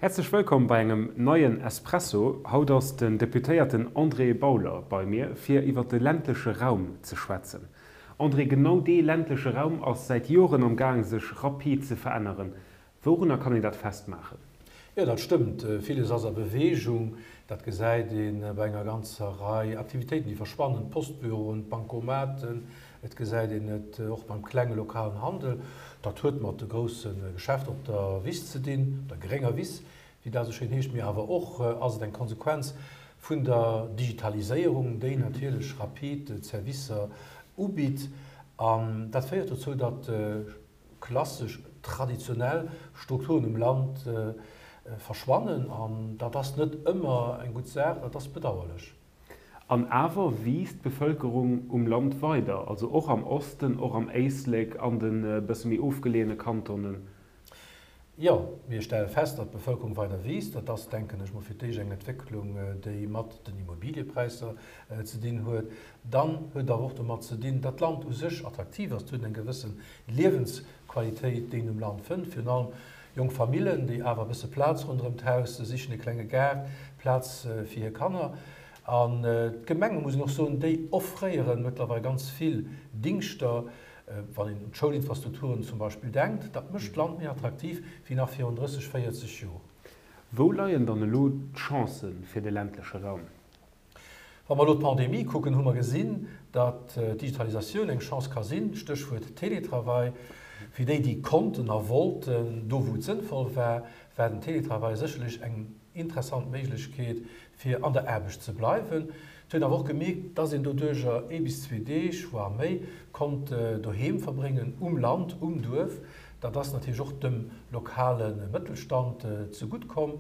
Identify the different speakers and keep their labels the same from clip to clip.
Speaker 1: Häerzlech wëllkomm bei engem neien Espresso. Haut ass den Deputéierten André Bauler bei mir, fir iwwer de ländleche Raum ze schwätzen. André, genau dee ländleche Raum ass säit Joren am Gaang sech rapid ze veränneren. Wourunner kann een dat festmaachen?
Speaker 2: Jo, dat stëmmt. Villes ass a Beweegung. Dat gesäit ee bei enger ganzer Rei Aktivitéiten, déi verschwannen, d'Postbüroen, d'Bankomaten. Et gesäit een et och beim klenge lokalen Handel. Dat huet mat de grousse Geschäfter op der Wiss ze dinn, op der grénger Wiss, wéi dat esou schéin heescht. Mee awer och ass et eng Konsequenz vun der Digitaliséierung, déi natierlech rapid d'Servicer ubitt. An dat féiert dozou, datt klassesch, traditionell Strukturen um Land verschwannen. An dat ass net ëmmer eng gutt Saach, dat ass bedauerlech.
Speaker 1: An awer wiisst d'Bevëlkerung um Land weider, also och am Osten, och am Éislek, an de bësse méi ofgeleeëne Kantonen.
Speaker 2: Jo, mir stelle fest, datt d'Bevëlkerung weider wiisst. Dat ass, denken ech mol, fir d'éischt eng Entwécklung, déi mat den Immobiliëpräisser ze dinn huet. Dann huet et awer och domat ze dinn, datt d'Land u sech attraktiv ass. Et huet eng gewësse Liewensqualitéit, déi een um Land fënnt, virun allem jonk Famillen, déi awer e bësse Plaz ronderëm d'Haus sichen, e klenge Gaart, Plaz fir hir Kanner. An d'Gemenge, muss een och soen, déi offréiere mëttlerweil ganz vill Dingschter, Wann een un d'Schoulinfrastrukturen zum Beispill denkt, dat mécht d'Land méi attraktiv wéi nach virun 30, 40 Joer.
Speaker 1: Wou leien dann elo d'Chancë fir de ländleche Raum?
Speaker 2: Wa mer elo d'Pandemie kucken, hu mer gesinn, datt d'Digitalisatioun eng Chance ka sinn, Stéchwuert Télétravail. Fir déi, déi konnten a wollten, do wou et sënnvoll war, war den Télétravail sécherlech eng interessant Méiglechkeet, fir an der Aarbecht ze bleiwen. Et huet een awer och gemierkt, dass een doduercher ee bis zwee Deeg, voire méi, konnt doheem verbréngen, um Land, um Duerf. Dat ass natierlech och dem lokale Mëttelstand zegutt komm.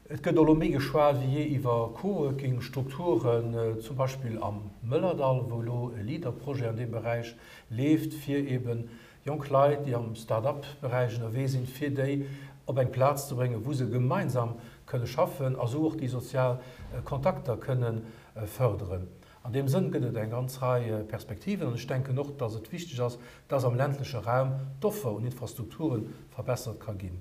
Speaker 2: Et gëtt elo méi geschwat wéi jee iwwer Coworking-Strukturen, zum Beispill am Mëllerdall, wou elo e Leader-Projet an deem Beräich leeft, fir eeben Jonk Leit, déi am Start-up-Beräich ënnerwee sinn, fir déi op eng Plaz ze bréngen, wou se gemeinsam kënne schaffen a sou och déi sozial Kontakter kënne fërderen. An deem Sënn gëtt et eng ganz Rei Perspektiven an ech denken och, dass et wichteg ass, dass am ländleche Raum d'Offer un Infrastrukture verbessert ka ginn.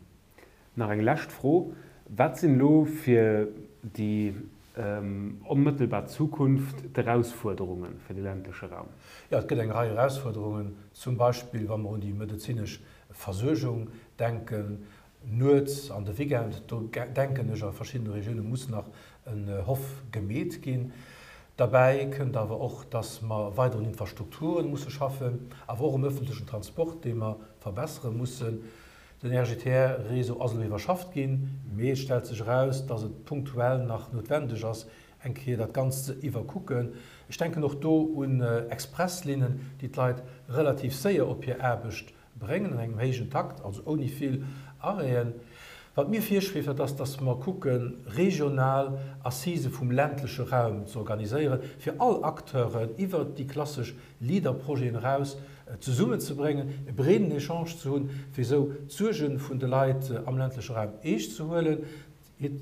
Speaker 1: Nach eng lescht Fro, Wat sinn elo fir déi onmëttelbar Zukunft d'Erausfuerderunge fir de ländleche Raum?
Speaker 2: Jo, et gëtt eng Rei Erausfuerderungen, zum Beispill wa mer un déi medezinesch Versuergung denken, nuets an de Weekend. Do denken ech, a verschiddene Regioune muss nach en Hoff gemeet ginn. Derbäi kënnt awer och, dass mer weider un Infrastrukture musse schaffen, awer och um öffentlechen Transport, dee mer verbessere mussen. Den RGTR-Réseau ass elo iwwerschafft ginn, mee et stellt sech eraus, dass et punktuell nach noutwendeg ass, eng Kéier dat Ganzt ze iwwerkucken. Ech denken och do un Expresslinnen, déi d'Leit relativ séier op hir Aarbecht bréngen, an engem héijen Takt, also ouni vill Arrêten. Wat mir virschweeft, dat ass, dass mer kucken, regional Assisë vum ländleche Raum ze organiséieren, fir all Acteuren iwwert déi klassesch Leader-Projeten eraus zesummenzebréngen, e breeden Echange ze hunn, fir esou d'Suerge vun de Leit am ländleche Raum eescht ze huelen,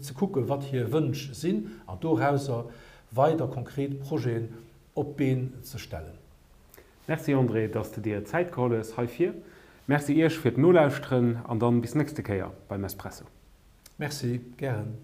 Speaker 2: ze kucken, wat hir Wënsch sinn an dorauser weider konkret Projeten op d'Been ze stellen.
Speaker 1: Merci André, dass de dir Zäit geholl hues heifir. Merci iech fir d'Nolauschteren an dann bis nächste Kéier beim Espresso.
Speaker 2: Merci, gären.